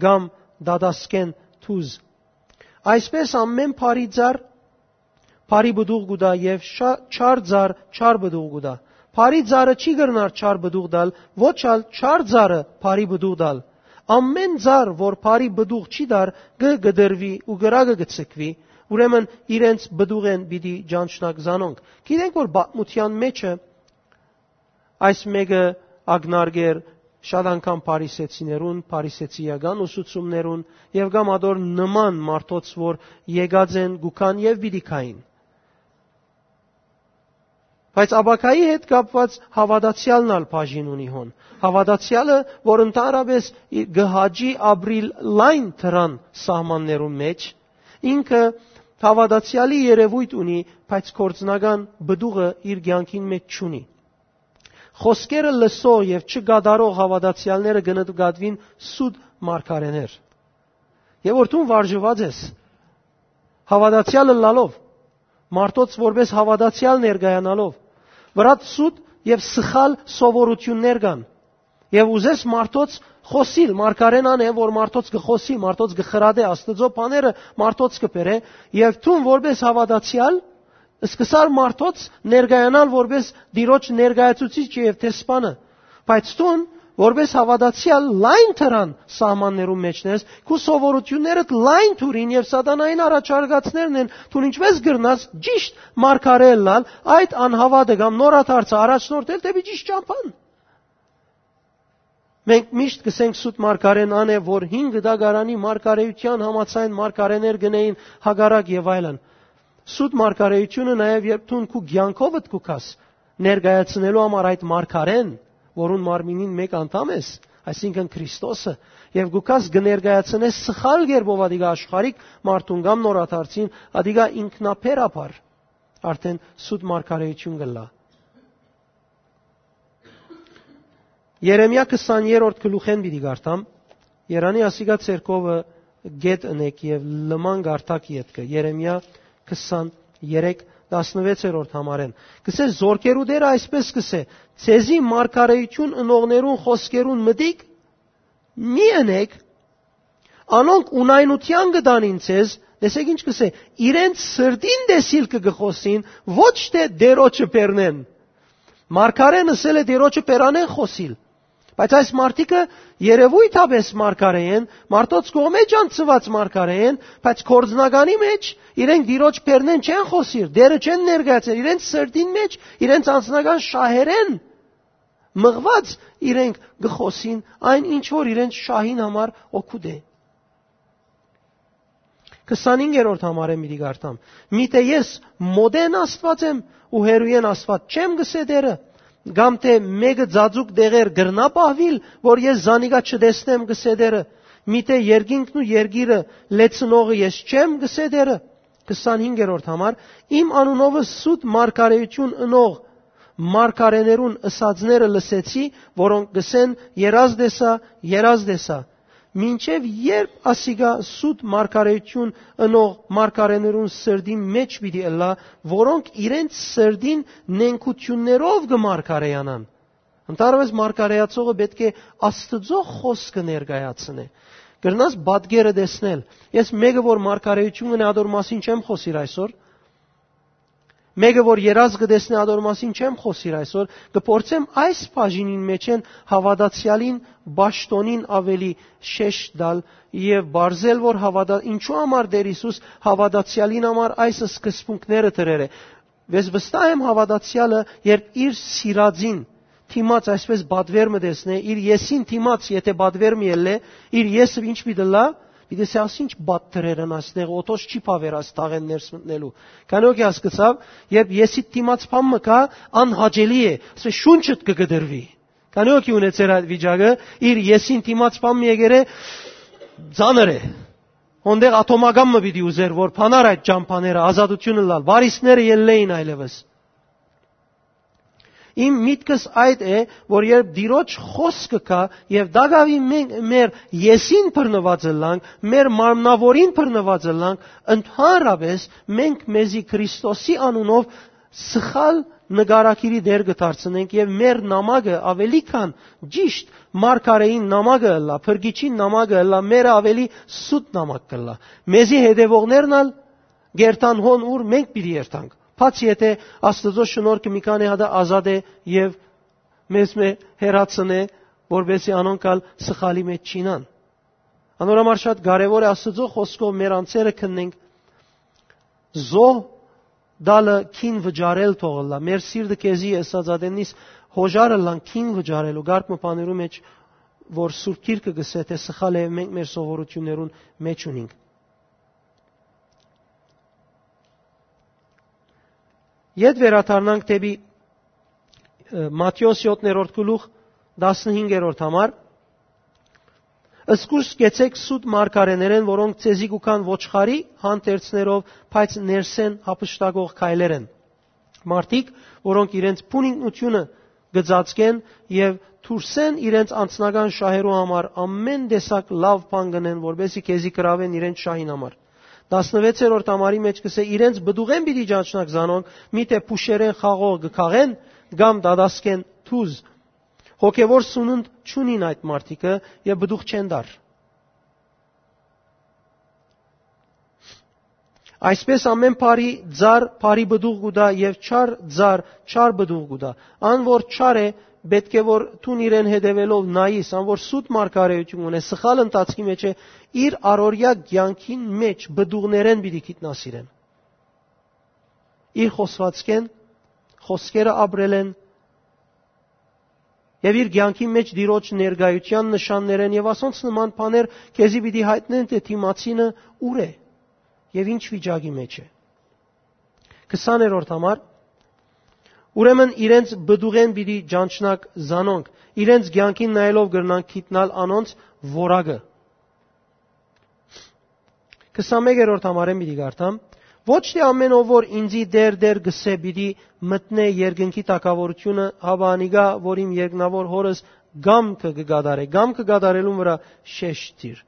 կամ դատասկէն թուզ։ Այսպէս ամէն բարի ծառ բարի պտուղ կու տայ եւ շա-, չար ծառ չար պտուղ կու տայ։ Բարի ծառը չի կրնար չար պտուղ տալ, ոչ ալ չար ծառը բարի պտուղ տալ։ Ամէն ծառ, որ բարի պտուղ չի տար, կը կտրուի ու կրակը կը ցկուի։ Ուրեմն իրենց պտուղէն պիտի ճանչնաք զանոնք»։ Գիտենք, որ պատմութեան մէջը այս մէկը ակնարկեր շատ անգամ փարիսեցիներուն, փարիսեցիական ուսուցումներուն եւ կամ ատոր նման մարդոց, որ եկած են, կու գան եւ պիտի գային։ Բայց ապագայի հետ կապուած հաւատացեալն ալ բաժին ունի հոն։ Հաւատացեալը, որ ընդհանրապէս ի-, կը հաճի ապրիլ լայն դրան սահմաններուն մէջ, ինքը հաւատացեալի երեւոյթ ունի, բայց գործնական պտուղը իր կեանքին մէջ չունի։ Խօսքերը լսող եւ չկատարող հաւատացեալները կը նկատուին սուտ մարգարէներ։ Եւ որ դուն վարժուած ես, հաւատացեալ ըլլալով, մարդոց որպէս հաւատացեալ ներկայանալով, վրադ սուտ եւ սխալ սովորութիւններ կան։ Եւ ուզես մարդոց խօսիլ, մարգարէն ան է, որ մարդոց կը խօսի, մարդոց կը խրատէ, Աստուծոյ բաները մարդոց կը բերէ, եւ դուն որպէս հաւատացեալ, սկսար մարդոց ներկայանալ որպէս Տիրոջ ներկայացուցիչը եւ դեսպանը, բայց դուն, որպէս հաւատացեալ լայն դրան սահմաններուն մէջն ես, քու սովորութիւններդ լայն թուրին եւ սատանային առաջարկածներն են, դուն ինչպէս կրնաս ճիշտ մարգարէ ըլլալ, այդ անհաւատը կամ նորադարձը առաջնորդել դէպի ճիշտ ճամբան։ Մենք միշտ կսենք սուտ մարգարէն ան է, որ հին կտակարանի մարգարէութեան համաձայն մարգարէներ գնային հակառակ եւ այլն։ Սուտ մարգարէութիւնը նաեւ երբ դուն քու կեանքովդ կու գաս ներկայացնելու համար այդ մարգարէն, որուն մարմինին մէկ անդամ ես, այսինքն Քրիստոսը, եւ կու գաս կը ներկայացնես սխալ կերպով ադիգա աշխարհիկ մարդուն կամ նորադարձին, ադիգա ինքնաբերաբար արդեն սուտ մարգարէութիւն կ'ըլլայ։ Երեմիա քսաներորդ գլուխէն պիտի կարդամ։ Երանի ասիկա ձեռքովը գետ ընեք եւ լման կարդակ ետքը։ Երեմիա քսաներեք, տասնվեցերորդ համարէն։ Կսէ, զորքերու Տերը այսպես կսէ. «Ձեզի մարգարէութիւն ընողներուն խօսքերուն մտիկ մի ընեք, անոնք ունայնութեան կը տանին ձեզ», տեսեք ինչ կսէ, «իրենց սրտին տեսիլքը կը խօսին, ոչ թէ Տերոջը բեռնեն»։ Մարգարէն ըսել է Տերոջը բերանեն խօսիլ, բայց այս մարդիկը երևոյթապէս մարգարէ են, մարդոց կողմէ ճանչցուած մարգարէ են, բայց գործնականի մէջ իրենք Տիրոջ բեռնեն չեն խօսիր, Տերը չեն ներկայացրել, իրենց սրտին մէջ, իրենց անձնական շահերեն մղուած իրենք կը խօսին այն, ինչ որ իրենց շահին համար օգուտ է։ Քսանհինգերորդ համարէն պիտի կարդամ. «Միթէ ես մօտէն Աստուած եմ ու հեռուէն Աստուած չեմ», կսէ Տերը, կամ թէ մէկը ծածուկ տեղեր կրնա պահուիլ, որ ես զանիկա չտեսնեմ, կսէ Տերը, միթէ երկինքն ու երկիրը լեցնողը ես չեմ, կսէ Տերը։ Քսանհինգերորդ համար. «Իմ անունովը սուտ մարգարէութիւն ընող մարգարէներուն ըսածները լսեցի, որոնք կսեն. "Երազ տեսայ, երազ տեսայ"։ Մինչեւ երբ ասիկա սուտ մարգարէութիւն ընող մարգարէներուն սրտին մէջ պիտի ըլլայ, որոնք իրենց սրտին նենգութիւններով կը մարգարեանան»։ Ընդհանրապես մարգարեացողը պէտք է Աստուծոյ խօսքը ներկայացնէ։ Կրնաս պատկերը տեսնել։ Ես մեկը, որ մարգարեութիւն ունի, ադոր մասին չեմ խօսիր այսօր։ Մեկը, որ երազ կը տեսնէ, ադոր մասին չեմ խօսիր այսօր։ Կը փորձեմ այս բաժինին մէջէն հաւատացեալին պաշտոնին աւելի շեշտ տալ եւ բարձել, որ հաւատա-, ինչու համար Տեր Յիսուս հաւատացեալին համար այս սկզբունքները դրեր է։ Ես վստահ եմ, հաւատացեալը, երբ իր սիրածին դիմաց այսպես պատվեր մը տեսնէ, իր եսին դիմաց, եթե պատվեր մը ելլէ, իր եսը ինչ պիտի լա, պիտի սե, «Աս ինչ պատվեր են ասնեղ, օտոս չի բաւեր աս թաղեն ներս մտնելու»։ Քանի օքի հասկցաւ, երբ եսիդ դիմաց բան մը կայ, անհաճելի է, ասե, շունչդ կը կտրուի։ Քանի օքի ունեցեր այդ վիճակը, իր եսին դիմաց բան մը եկեր է, ծանր է։ Հոնդեղ աթոմական մը պիտի ուզեր, որ փանար այդ ճամփաները, ազատությունը լալ, վարիսները ելլեին այլևս։ Իմ միտքս այդ է, որ երբ Տիրոջ խօսքը կայ եւ դակաւի մենք մեր եսին բռնուած ըլլանք, մեր մարմնավորին բռնուած ըլլանք, ընդհանրապես մենք մեզի Քրիստոսի անունով սխալ նկարագիրի դեր կը դարձնենք եւ մեր նամակը ավելի քան ճիշտ մարգարեին նամակը ըլլայ, փրկիչին նամակը ըլլայ, մերը ավելի սուտ նամակ կ'ըլլայ։ Մեզի հետեւողներն ալ կերթան հոն, ուր մենք պիտի երթանք, բացի եթե Աստուծոյ շնորհքը մի քանի հատը ազատ է եւ մեզ մէ հեռացնէ, որպեսզի անոնք ալ սխալի մեջ չինան։ Անոր համար շատ կարեւոր է Աստուծոյ խօսքով մեր անձերը քննենք, զոհ տալը քին վճարել թող ըլլայ։ Մեր սիրտը քեզի ըսած ատեննիս հոժար ըլլան քին վճարելու կարգ մը բաներու մեջ, որ Սուրբ Գիրքը կ'ըսէ, թէ սխալ է, մենք մեր սովորութիւններուն մեջ ունինք։ Ետ վերադառնանք դեպի, ը, Մատթէոս յոթերորդ գլուխ, տասնհինգերորդ համար։ «Զգուշ կեցեք սուտ մարգարեներէն, որոնք ձեզի կու գան ոչխարի հանդերձներով, բայց ներսէն յափշտակող քայլեր են»։ Մարդիկ, որոնք իրենց բուն ինքնությունը կը ծածկեն եւ դուրսէն իրենց անձնական շահերու համար ամէն տեսակ լաւ բան կ'ընեն, որպեսզի քեզի գրաւեն իրենց շահին համար։ Տասնվեցերորդ համարի մեջ կ'ըսէ. «Իրենց պտուղէն պիտի ճանչնաք զանոնք, միթէ փուշերէն խաղող կը քաղեն կամ դատասկէն թուզ։ Հոգեվոր սունունդ չունին այդ մարդիկը եւ պտուղ չեն տար»։ Այսպես ամէն բարի ծառ բարի պտուղ կու տայ եւ չար ծառ չար պտուղ կու տայ։ Ան որ չար է, պէտք է որ դուն իրեն հետեւելով նայիս, ան որ սուտ մարգարեութիւն ունէ, սխալ ընթացքի մեջ է, իր առօրեայ կեանքին մեջ պտուղներէն պիտի գիտնաս իրեն։ Իր խօսվածքէն, խօսքերը ապրելէն եւ իր կեանքին մեջ Տիրոջ ներկայութեան նշաններէն եւ ասոնց նման բաներ քեզի պիտի յայտնեն, թէ դիմացինը ուր է եւ ինչ վիճակի մեջ է։ Քսաներորդ համար. «Ուրեմն իրենց պտուղէն պիտի ճանչնաք զանոնք, իրենց կեանքին նայելով կրնանք գիտնալ անոնց որակը»։ Քսանմեկերորդ համարէն պիտի կարդամ. «Ոչ թէ ամէն ով որ ինծի "Տէր, Տէր" կ'ըսէ, պիտի մտնէ երկնքի թագաւորութիւնը, հապա անիկա, որ իմ երկնաւոր Հօրս կամքը կը կատարէ»։ Կամքը կատարելուն վրայ շեշտ դիր։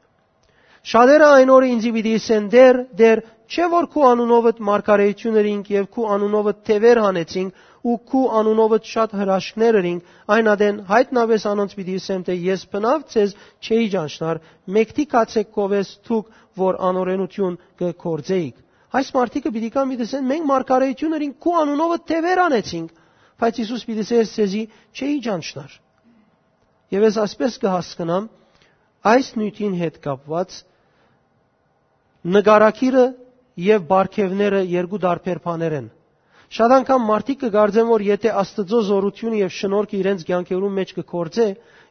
«Շատերը այն օրը ինծի պիտի ըսեն. "Տէր, Տէր, չէ՞ որ քու անունովդ մարգարէութիւն ըրինք եւ քու անունովդ թեւեր հանեցինք ու քու անունովդ շատ հրաշքներ ըրինք"։ Այն ատեն յայտնապէս անոնց պիտի ըսեմ, թէ ես բնաւ ձեզ չէի ճանչնար, մեկդի գացէք քովէս դուք, որ անօրէնութիւն կը գործէիք»։ Այս մարդիկը պիտի կան, պիտի ըսեն. "Մենք մարգարէութիւն ըրինք, քու անունովդ թեւեր հանեցինք"։ Բայց Յիսուս պիտի ըսէր. "Ձեզի չէի ճանչնար"։ Եւ ես այսպես կը հասկնամ այս նիւթին հետ կապուած, նկարագիրը եւ պարգեւները երկու տարբեր բաներ են։ Շատ անգամ մարդիկ կը կարծեն, որ եթե Աստուծոյ զօրութիւնը եւ շնորհքը իրենց կեանքերուն մեջ կը գործէ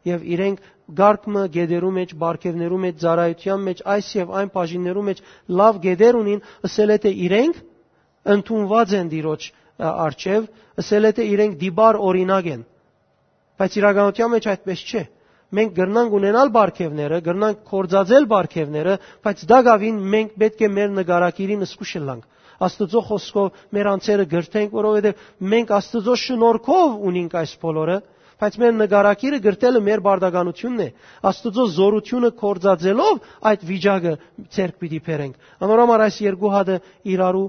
եւ իրենք կարգ մը գետերու մեջ, պարգեւներու մեջ, ծառայութեան մեջ, այս եւ այն բաժիններու մեջ լաւ գետեր ունին, ըսել է թէ իրենք ընդունուած են Տիրոջ, ա, առջեւ, ըսել է թէ իրենք տիպար օրինակ են։ Բայց իրականութեան մեջ այդպես չէ։ Մենք կրնանք ունենալ պարգեւները, կրնանք գործածել պարգեւները, բայց տակաւին մենք պէտք է մեր նկարագիրին զգուշ ըլլանք։ Աստուծոյ խօսքով մեր անձերը կրթենք, որովհետեւ մենք Աստուծոյ շնորհքով ունինք այս բոլորը, բայց մեր նկարագիրը կրթելը մեր պարտականութիւնն է։ Աստուծոյ զօրութիւնը գործածելով այդ վիճակը ձեռք պիտի բերենք։ Անոր համար այս երկու հատը իրարու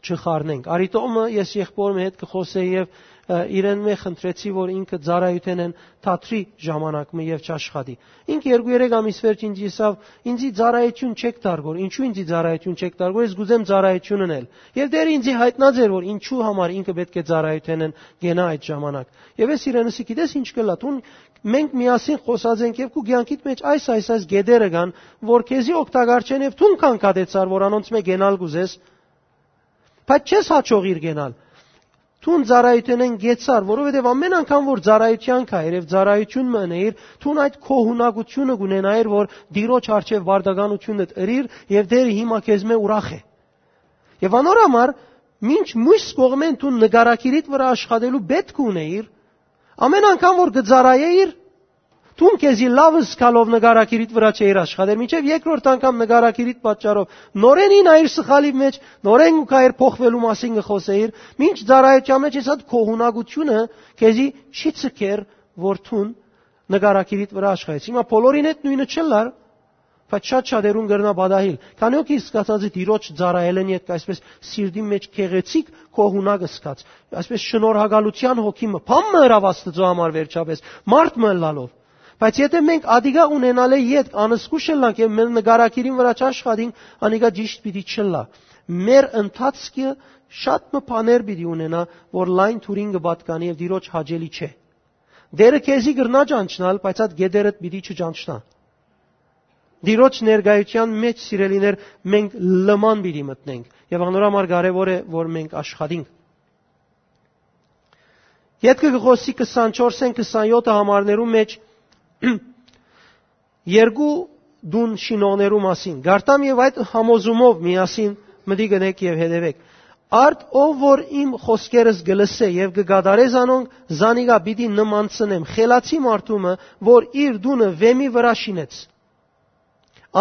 չխառնենք։ Արի թող մը ես եղբոր մը հետ կը խոսեմ եւ ը, իրեն մէ խնդրեցի, որ ինքը ծառայութենէն թատրի ժամանակ մը եւ չաշխատի։ Ինք երկու երեք ամիս վերջ ինձ ըսաւ. «Ինձի ծառայութիւն չեք տար գոր»։ «Ինչու՞ ինձի ծառայութիւն չեք տար գոր, ես կ'ուզեմ ծառայութիւն ընել»։ Եւ դեռ ինձի յայտնած էր, որ ինչու համար ինքը պէտք է ծառայութենէն կենայ այդ ժամանակ։ Եւ ես իրեն ըսի. «Գիտես ինչ կ'ըլլայ, դուն, մենք միասին խօսած ենք եւ քու կեանքիդ մէջ այս, այս, այս գետերը կան, որ քեզի օգտակար չեն, եւ դուն քան կատեցար, որ անոնց մէ կենալ կ'ուզես, բայց չես յաջողիր կենալ։ Դուն ծառայութենէն կեցար, որովհետեւ ամէն անգամ որ ծառայութեան կայեր եւ ծառայութիւն մը ընէիր, դուն այդ քո յունագութիւնը կ'ունենայիր, որ Տիրոջ առջեւ պարտականութիւնդ ըրիր եւ Տէրը հիմա քեզ մէ ուրախ է։ Եւ անոր համար, մինչ մյուս կողմէն դուն նկարագիրիդ վրայ աշխատելու պէտք ունէիր, ամէն անգամ որ կը ծառայէիր, դուն քեզի լաւ զգալով նկարագիրիդ վրայ չէիր աշխատեր, մինչեւ երկրորդ անգամ նկարագիրիդ պատճառով նորէն ինայիր սխալի մէջ, նորէն ու կայեր փոխվելու մասին կը խօսէիր, մինչ ծառայութեան մէջ ես այդ քո յունագութիւնը քեզի չի ցկեր, որ դուն նկարագիրիդ վրայ աշխատես։ Հիմա բոլորին հետ նոյնը չ'ըլլար, բայց շատ շատերուն կրնայ պատահիլ։ Քանի՞ հոգի զգացած է Տիրոջ ծառայելէն ետք այսպես սիրտի մէջ գեղեցիկ քո յունակ զգաց, այսպես շնորհակալութեան հոգի մը, բան մը ըրաւ Աստուծոյ համար վերջապէս, մարդ մը ըլլալով։ Բայց եթէ մենք ադիկա ունենալէ ետք անզգուշ ըլլանք եւ մեր նկարագիրին վրայ չաշխատինք, անիկա ճիշտ պիտի չըլլայ։ Մեր ընթացքը շատ մը բաներ պիտի ունենայ, որ լայն թուրին կը պատկանի եւ Տիրոջ հաճելի չէ։ Տէրը քեզի կրնայ ճանչնալ, բայց այդ գետերդ պիտի չճանչնայ։ Տիրոջ ներկայութեան մէջ, սիրելիներ, մենք լման պիտի մտնենք եւ անոր համար կարեւոր է, որ մենք աշխատինք։ Ետքը կը խօսի քսանչորսէն քսանեթ համարներու մէջ երկու տուն շինողներու մասին։ Գարտամ եւ այդ համոզումով միասին մտի գնեք եւ հետեւեք։ Արդ ով որ իմ խօսքերս կը լսէ եւ կը կատարէ զանոնք, զանիկա պիտի նմանցնեմ խելացի մարդու մը, որ իր տունը վէմի վրայ շինեց։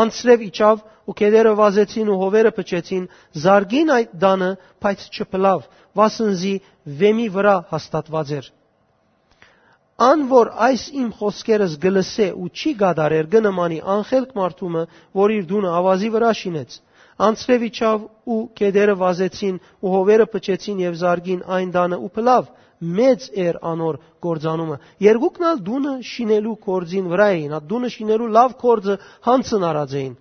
Անձրեւ իջաւ ու գետերը վազեցին ու հովերը փչեցին, զարկին այդ տանը, բայց չփլաւ, վասն զի վէմի վրայ հաստատուած էր։ Ան որ այս իմ խօսքերս կը լսէ ու չի կատարեր, կը նմանի անխելք մարդու մը, որ իր տունը աւազի վրայ շինեց։ Անձրեւ իջաւ ու գետերը վազեցին ու հովերը փչեցին եւ զարկին այն տանը ու փլաւ, մեծ էր անոր կործանումը։ Երկուքն ալ տունը շինելու կորձին վրայ էին, այդ տունը շինելու լաւ կորձը յանցն առած էին։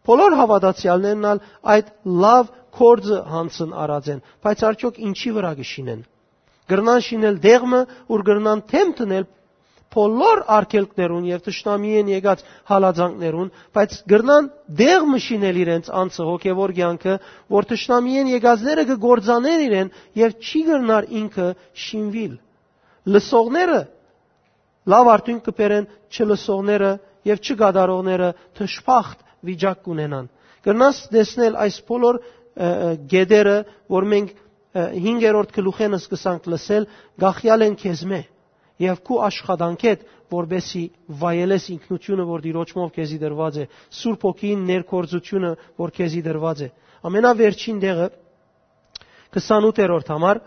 Բոլոր հաւատացեալներն ալ այդ լաւ կորձը յանցն առած են, բայց արդյոք ինչի վրայ կը շինեն։ Կրնան շինել տեղ մը, ուր կրնան դէմ դնել բոլոր արգելքներուն եւ թշնամիէն եկած հալածանքներուն, բայց կրնան տեղ մը շինել իրենց անձը, հոգեվոր կեանքը, որ թշնամիէն եկածները կը կործանեն իրեն եւ չի կրնար ինքը շինուիլ։ Լսողները լաւ արդիւնք կը բերեն, չլսողները եւ չկատարողները դժբախտ վիճակ կունենան։ Կրնաս տեսնել այս բոլոր, ը, ը, գետերը, որ մենք, ը, հինգերորդ գլուխէն սկսանք լսել, գախյալ են քեզմէ եւ քու աշխատանքէդ, որպեսզի վայելես ինքնությունը, որ Տիրոջմով քեզի տրուած է, Սուրբ Հոգին ներգործությունը, որ քեզի տրուած է։ Ամենավերջին տեղը, քսանութերորդ համար,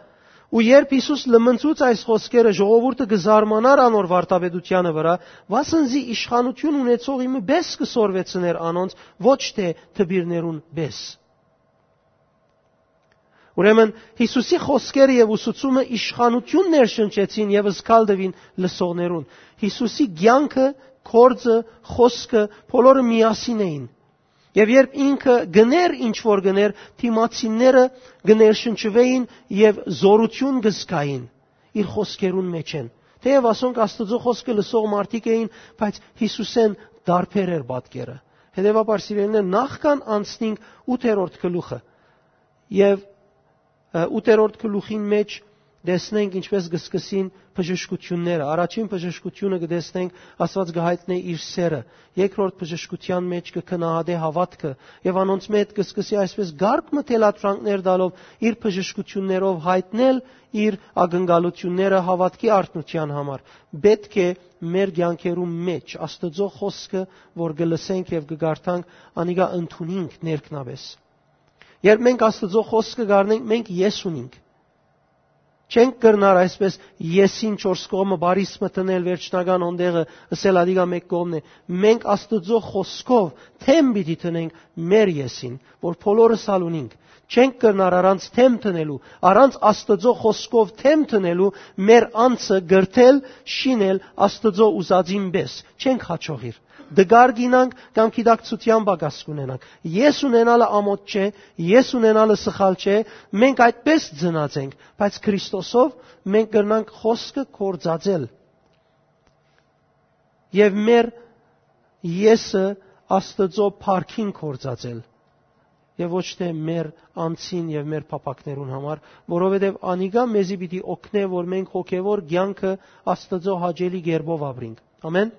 ու երբ Յիսուս լմնցուց այս խօսքերը, ժողովուրդը կը զարմանար անոր վարդապետութեանը վրայ, վասն զի իշխանութիւն ունեցողի մը պէս կը սորվեցներ անոնց, ոչ թէ դպիրներուն պէս։ Ուրեմն, Յիսուսի խօսքերը եւ ուսուցումը իշխանութիւն ներշնչեցին եւ զգալ տուին լսողներուն։ Յիսուսի կեանքը, կորձը, խօսքը, բոլորը միասին էին։ Եւ երբ ինքը գներ, ինչ որ գներ, դիմացինները կը ներշնչուէին եւ զօրութիւն կը զգային իր խօսքերուն մէջէն։ Թէեւ ասոնք Աստուծոյ խօսքը լսող մարդիկ էին, բայց Յիսուսէն տարբեր էր պատկերը։ Հետեւաբար, սիրելիներ, նախքան անցնինք ութերորդ գլուխը, եւ, ը, ութերորդ գլուխին մէջ տեսնենք ինչպես կը սկսին բժշկութիւնները։ Առաջին բժշկութիւնը կը տեսնենք, Աստուած կը յայտնէ իր սերը։ Երկրորդ բժշկութեան մէջ կը գնահատէ հաւատքը եւ անոնց մէջ կը սկսի այսպես կարգ մը թելադրանքներ տալով, իր բժշկութիւններով յայտնել իր ակնկալութիւնները հաւատքի արթնութեան համար։ Պէտք է մեր կեանքերու մէջ Աստուծոյ խօսքը, որ կը լսենք եւ կը կարդանք, անիկա ընդունինք ներքնապէս։ Երբ մենք Աստուծոյ խօսքը կառնենք, մենք ես ունինք։ Չենք կրնար այսպես եսին չորս կողմը բարիս մը դնել վերջնական հոն տեղը, ըսել ադիգա մեկ կողմն է։ Մենք Աստուծոյ խօսքով թեմ պիտի դնենք մեր եսին, որ բոլորս ալ ունինք։ Չենք կրնար առանց թեմ դնելու, առանց Աստուծոյ խօսքով թեմ դնելու մեր անձը կրթել, շինել Աստուծոյ ուզածին պէս։ Չենք հաջողիր։ Դգար կինանք կամ գիտակցութեան պակաս կունենանք։ Ես ունենալը ամոթ չէ, ես ունենալը սխալ չէ, մենք այդպես ծնած ենք, բայց Քրիստոսով մենք կրնանք խօսքը կործածել եւ մեր եսը Աստուծոյ փառքին կործածել եւ ոչ թէ մեր անձին եւ մեր փափակներուն համար, որովհետեւ անիկա մեզի պիտի օգնէ, որ մենք հոգեւոր կեանքը Աստուծոյ հաճելի կերպով ապրինք։ Ամեն։